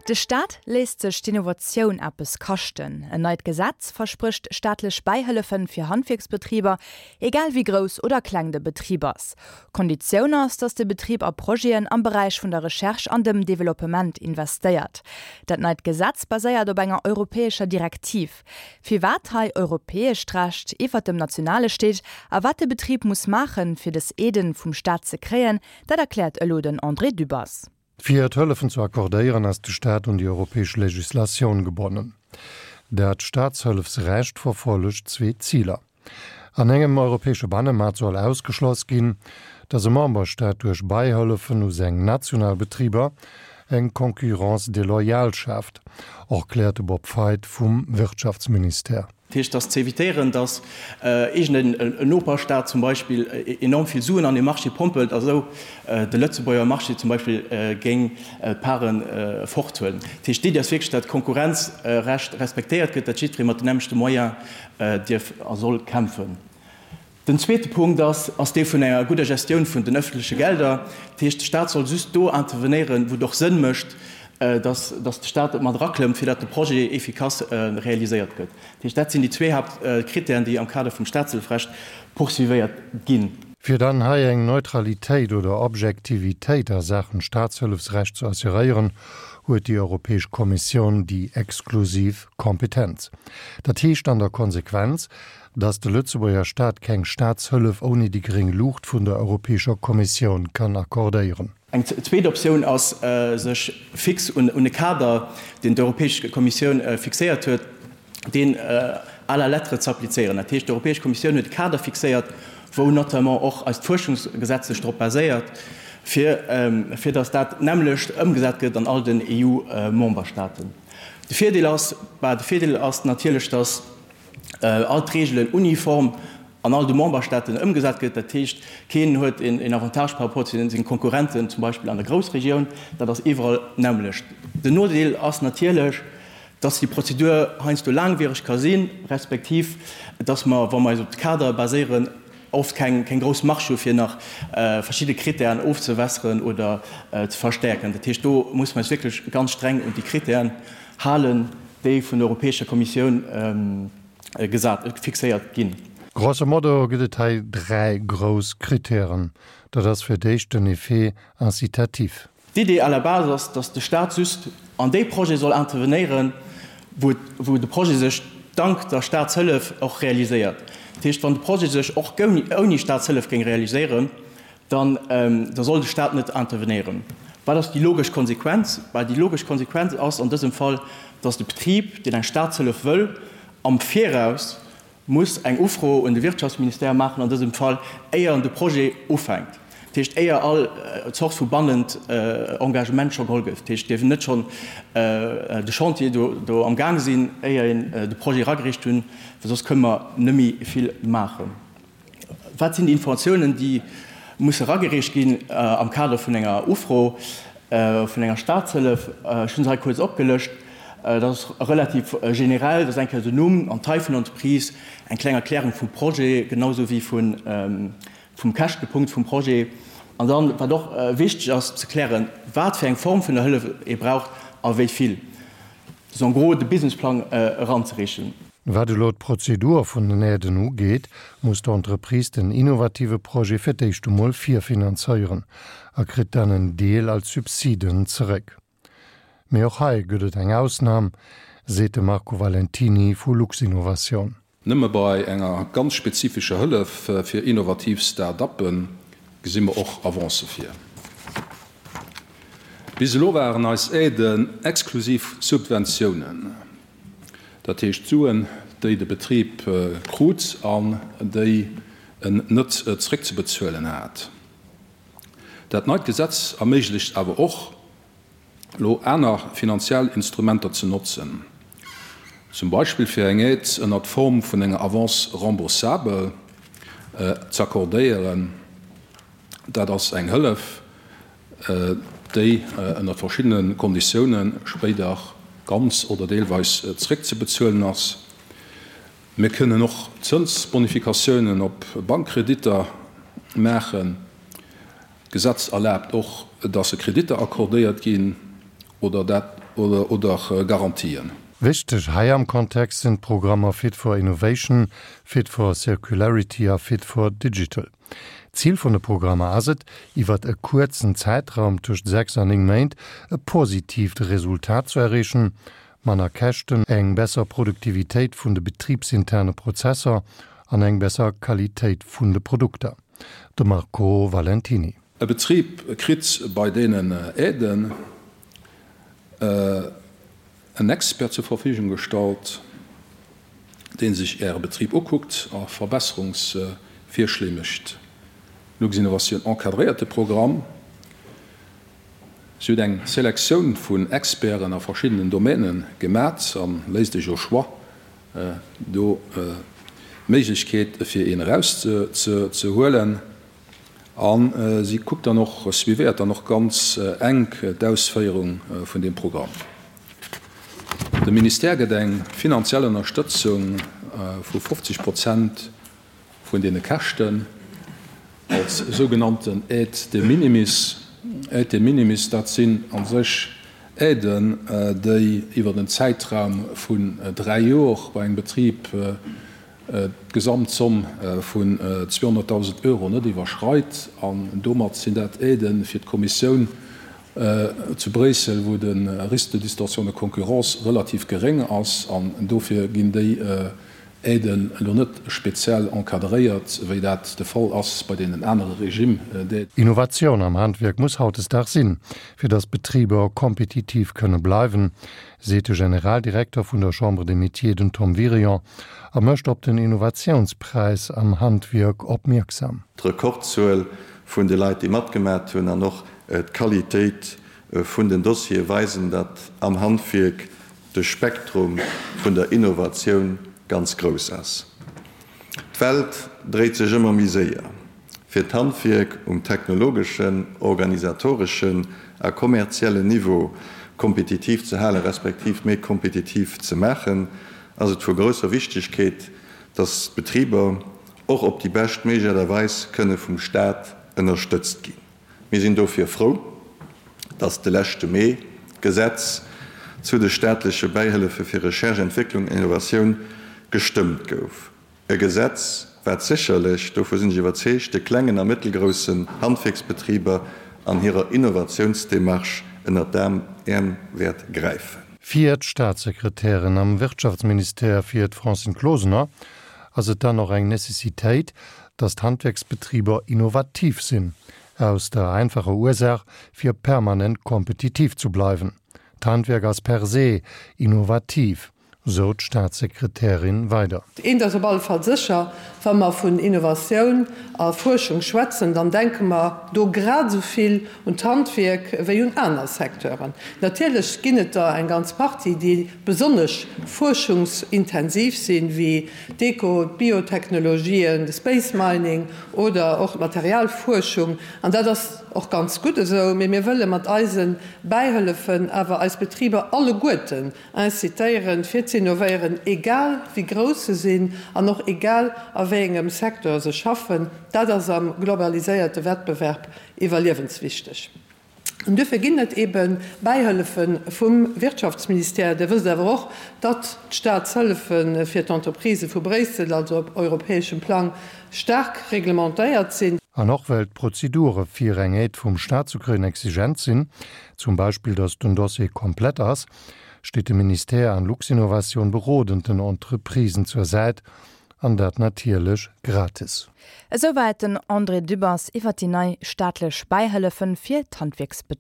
De Staat léisst sech d'Innovatioun eppes kaschten. En neit Gesetz versprécht staatlech Bäihëllefen fir Handwierksbetriber, egal wéi grouss oder kleng de Betrib ass. Konditioun ass, datt de Betrib a Projeten am Beräich vun der Recherche an dem Developpement investéiert. Dat neit Gesetz baséiert op enger europäescher Direktiv. Firwat hei europäescht Recht iwwert dem nationale steet a wat de Betrib muss maachen, fir dës Aiden vum Staat ze kréien, dat erkläert elo den André Dübbers. Fir d'Hëllefen ze accordéieren, ass de Staat un déi europäesch Legislatioun gebonnen. Dat Staatshëllefsrecht verfollegt zwee Ziler. An engem europäesche Bannemaart soll ausgeschloss ginn, datt e Memberstaat duerch Beihëllefen u seng national Betriber eng Concurrence déloyale schaaft, erkläert de Bob Feidt vum Wirtschaftsministère. Dat heescht, dass ze évitéieren, dass iergend en Noperstaat zum Beispill enorm vill Suen an dee Marché pompelt a sou de Lëtzebuerger Marché zum Beispill géing d'Paren forthuelen. Dat heescht, d'Iddi ass wierklech, dat d'Konkurrenzrecht respektéiert gëtt, dat jiddweree mat den nämmlechte Moyen dierf a soll kämpfen. Den zweete Punkt ass, ass dee vun enger gudder Gestioun vun den öffentleche Gelder. Dat heescht, de Stat soll just do intervenéieren, wou et och Sënn mécht, dass, dass de Stat mat eraklëmmt, fir dat de Projet efficace realiséiert gëtt. Dat heescht, dat sinn déi zwee Haaptkritären, déi am Kader vum Statshëllefrecht poursuivéiert ginn. Fir dann hei eng Neutralitéit oder Objektivitéit a Saachen Statshëllefsrecht ze assuréieren, huet déi Europäesch Kommissioun déi exklusiv Kompetenz. Dat heescht an der Konsequenz, dass de Lëtzebuerger Staat keng Staatshëllef ouni déi gréng Luucht vun der Europäescher Kommissioun kann accordéieren. Eng zweet Optioun ass, sech fix un e Kader, deen d'Europäesch Kommissioun fixéiert huet, deen à la lettre ze applizéieren. Dat heescht, d'Europäesch Kommissioun huet e Kader fixéiert, wou notamment och eist Fuerschungsgesetz sech drop baséiert, fir, fir dass dat nämmlecht ëmgesat gëtt an all den EU-Memberstaaten. De Virdeel ass, bah, de Virdeel ass natierlech, dass all d'Reegelen uniform an all de Memberstaaten ëmgesat gëtt. Dat heescht, keen huet een Avantage par rapport zu senge Konkurrenten, zum Beispill an der Groussregioun. Dat ass iwwerall d'nämmlecht. Den Nodeel ass natierlech, dass déi Prozedur heiansdo laangwiereg ka sinn, respektiv dass mer, wa mer eis op de Kader baséieren, oft keng grouss Marge hu fir nach verschidde Kritären ofzewässeren oder ze verstäerken. Dat heescht, do musse mer eis wierklech ganz streng un déi Kritären halen, déi vun der Europäescher Kommissioun gesat, fixéiert ginn. Grosso modo gëtt et hei 3 grouss Kritären. Dat ass fir d'éischt den Effet incitatif. D'Idee à la base ass, datt de Staat just an déi Projete soll intervenéieren, wou, wou de Projet sech dank der Staatshëllef och realiséiert. Dat heescht, wann de Projet sech och ouni Staatshëllef géing realiséieren, dann da soll de Staat net intervenéieren. Wat ass déi logesch Konsequenz? Bah, déi logesch Konsequenz ass an dësem Fall, dass de Betrib, deen eng Staatshëllef wëll, am Viraus muss eng Ufro un de Wirtschaftsministère maachen, an dësem Fall, éier en de Projet ufänkt. Dat heescht, éier all Zort vu bannend Engagement scho geholl gëtt. Dat heescht, et dierf net schonn de Chantier do am Gaang sinn, éier een de Projet eragereecht hunn, well soss kënne mer net méi vill maachen. Wat sinn déi Informatiounen, déi musse eragereecht ginn am Kader vun enger Ufro vun enger Staatshëllef? Ech hunn se hei kuerz opgelëscht. Dat ass relativ generell. Dat ass eng Kéier den Numm an d'Taille vun der Entreprise, eng kleng Erklärung vum Projet, genau esou wéi vum Käschtepunkt vum Projet. An dann, wat och wichteg ass ze klären, wat fir eng Form vun der Hëllef ee braucht a wéi vill. En gros de Businessplang eranzereechen. Wat elo d'Prozedur vun den Aiden ugeet, muss d'Entreprise den innovative Projet fir d'éischt emol virfinanzéieren a kritt dann en Deel als Subsiden zeréck. Mee och hei gëtt et eng Ausnam, seet de Marco Valentiny vu Luxinnovation. Nëmme bei enger ganz spezifescher Hëllef fir innovativ Start-uppe gesi mer och Avancë vir. Bis elo waren eis Aiden exklusiv Subventiounen, dat heescht Suen, déi de Betrib krut an déi en net zeréckzebezuelen hat. Dat neit Gesetz erméiglecht awer och, elo aner finanziell Instrumenter ze notzen, zum Beispill fir eng Aide ënnert Form vun enger Avance remboursable ze accordéieren. Dat ass eng Hëllef, déi ënnert verschiddene Konditioune spéider ganz oder deelweis zeréckzebezuelen ass. Mir kënnen och Zënsbonifikatiounen op Bankkreditter maachen. D'Gesetz erlaabt och, dass Kreditter accordéiert ginn oder dat. Oder Garantien. Wichteg hei am Kontext sinn d'Programmer Fit for Innovation, Fit for Circularity a Fit for Digital. Zil vun de Programmer ass et, iwwert e kuerzen Zäitraum tëscht 6 an 9 Méint e positiivt Resultat ze erreechen, manner Käschten, eng besser Produktivitéit vun de betribsinterne Prozesser an eng besser Qualitéit vun de Produkter. De Marco Valentiny. E Betrib kritt bei deenen Aiden en Expert zur Verfügung gestallt, dee sech Äre Betrib ukuckt a Verbesserungsvirschléi mécht. Luxinnovation encadréiert de Programm. Si huet eng Selektioun vun Experten a verschiddenen Domäne gemat a léisst Iech au choix do d'Méiglechkeet, fir een erauszehuelen. A si kuckt dann och, suivéiert dann och ganz enk d'Ausféierung vun deem Programm. De Ministère gëtt eng finanziell Ënnerstëtzung vu 50 Prozent vun deene Käschten als sougenannten Aide de minimis. Aide de minimis, dat sinn a sech Aiden, déi iwwer en Zäitraum vun dräi Jor bei engem Betrib d'Gesamtzomm vun 200.000 Euro net iwwerschreit. An domat sinn dat Aidë fir d'Kommissioun zu Bréissel, wou de Risque de distorsion de concurrence relativ geréng ass. An dofir ginn déi Aiden elo net speziell encadréiert, wéi dat de Fall ass bei deenen anere Régime d'aide. Innovatioun am Handwierk muss hautdesdaags sinn, fir datt d'Betriber kompetitiv kënne bleiwen, seet de Generaldirekter vun der Chambre des Métiers, den Tom Wirion, a mécht op den Innovatiounspräis am Handwierk opmierksam. D'Rekordzuel vun de Leit, déi matgemat hunn, an och d'Qualitéit vun den Dossiere weisen, datt am Handwierk de Spektrum vun der Innovatioun ganz grouss ass. D'Welt dréit sech ëmmer méi séier. Fir d'Handwierk um technologeschen, organisatoreschen a kommerziellen Niveau kompetitiv ze halen, respektiv méi kompetitiv ze maachen, ass et vu grousser Wichtigkeet, dass d'Betriber och op déi bescht méiglech Aart a Weis kënne vum Staat ënnerstëtzt ginn. Mir sinn dofir frou, dass de leschte Mee d'Gesetz zu de staatleche Bäihëllefe fir Recherche, Entwécklung an Innovatioun gestëmmt gouf. E Gesetz, wat sécherlech, dovu sinn ech iwwerzeegt, de klengen a mëttelgroussen Handwierksbetriber an hirer Innovatiounsdemarche ënnert d'Äerm wäert gräifen. Fir d'Staatssekretärin am Wirtschaftsministère, fir d'Francine Closener, ass et dann och eng Necessitéit, datt d'Handwierksbetriber innovativ sinn, aus der einfacher Ursaach, fir permanent kompetitiv zu bleiwen. D'Handwierk ass per se innovativ, sou d'Staatssekretärin weider. Eent ass op alle Fall sécher, Wa mer vun Innovatioun a Fuerschung schwätzen, dann denke mer do grad esou vill un d'Handwierk wéi un aner Secteuren. Natierlech ginn et der eng ganz Partie, déi besonnesch fuerschungsintensiv sinn, wéi d'Eco-, d'Biotechnologien, de Space Mining oder och d'Materialfuerschung. An dat ass och ganz gutt esou. Mee mir wëlle mat eise Bäihëllefen awer eis Betriber alleguerten Incitéieren, fir ze innovéieren, egal wéi grouss se sinn an och egal a wéi engem Secteur se schaffen. Dat ass am globaliséierte Wettbewerb iwwerliewenswichteg. An duerfir ginn et ebe Bäihëllefe vum Wirtschaftsministère. Dir wësst awer och, datt d'Staatshëllefe fir d'Entreprisë vu Bréissel, also op europäeschem Plang, staark reglementéiert sinn. An och well d'Prozedure fir eng Aide vum Staat ze kréien exigent sinn, zum Beispill datt den Dossier komplett ass, steet de Ministère an Luxinnovation berodend den Entreprisen zur Säit, an dat natierlech gratis. Esouwäit den André Dübbers iwwer déi nei staatlech Bäihëllefen fir d'Handwierksbetriber.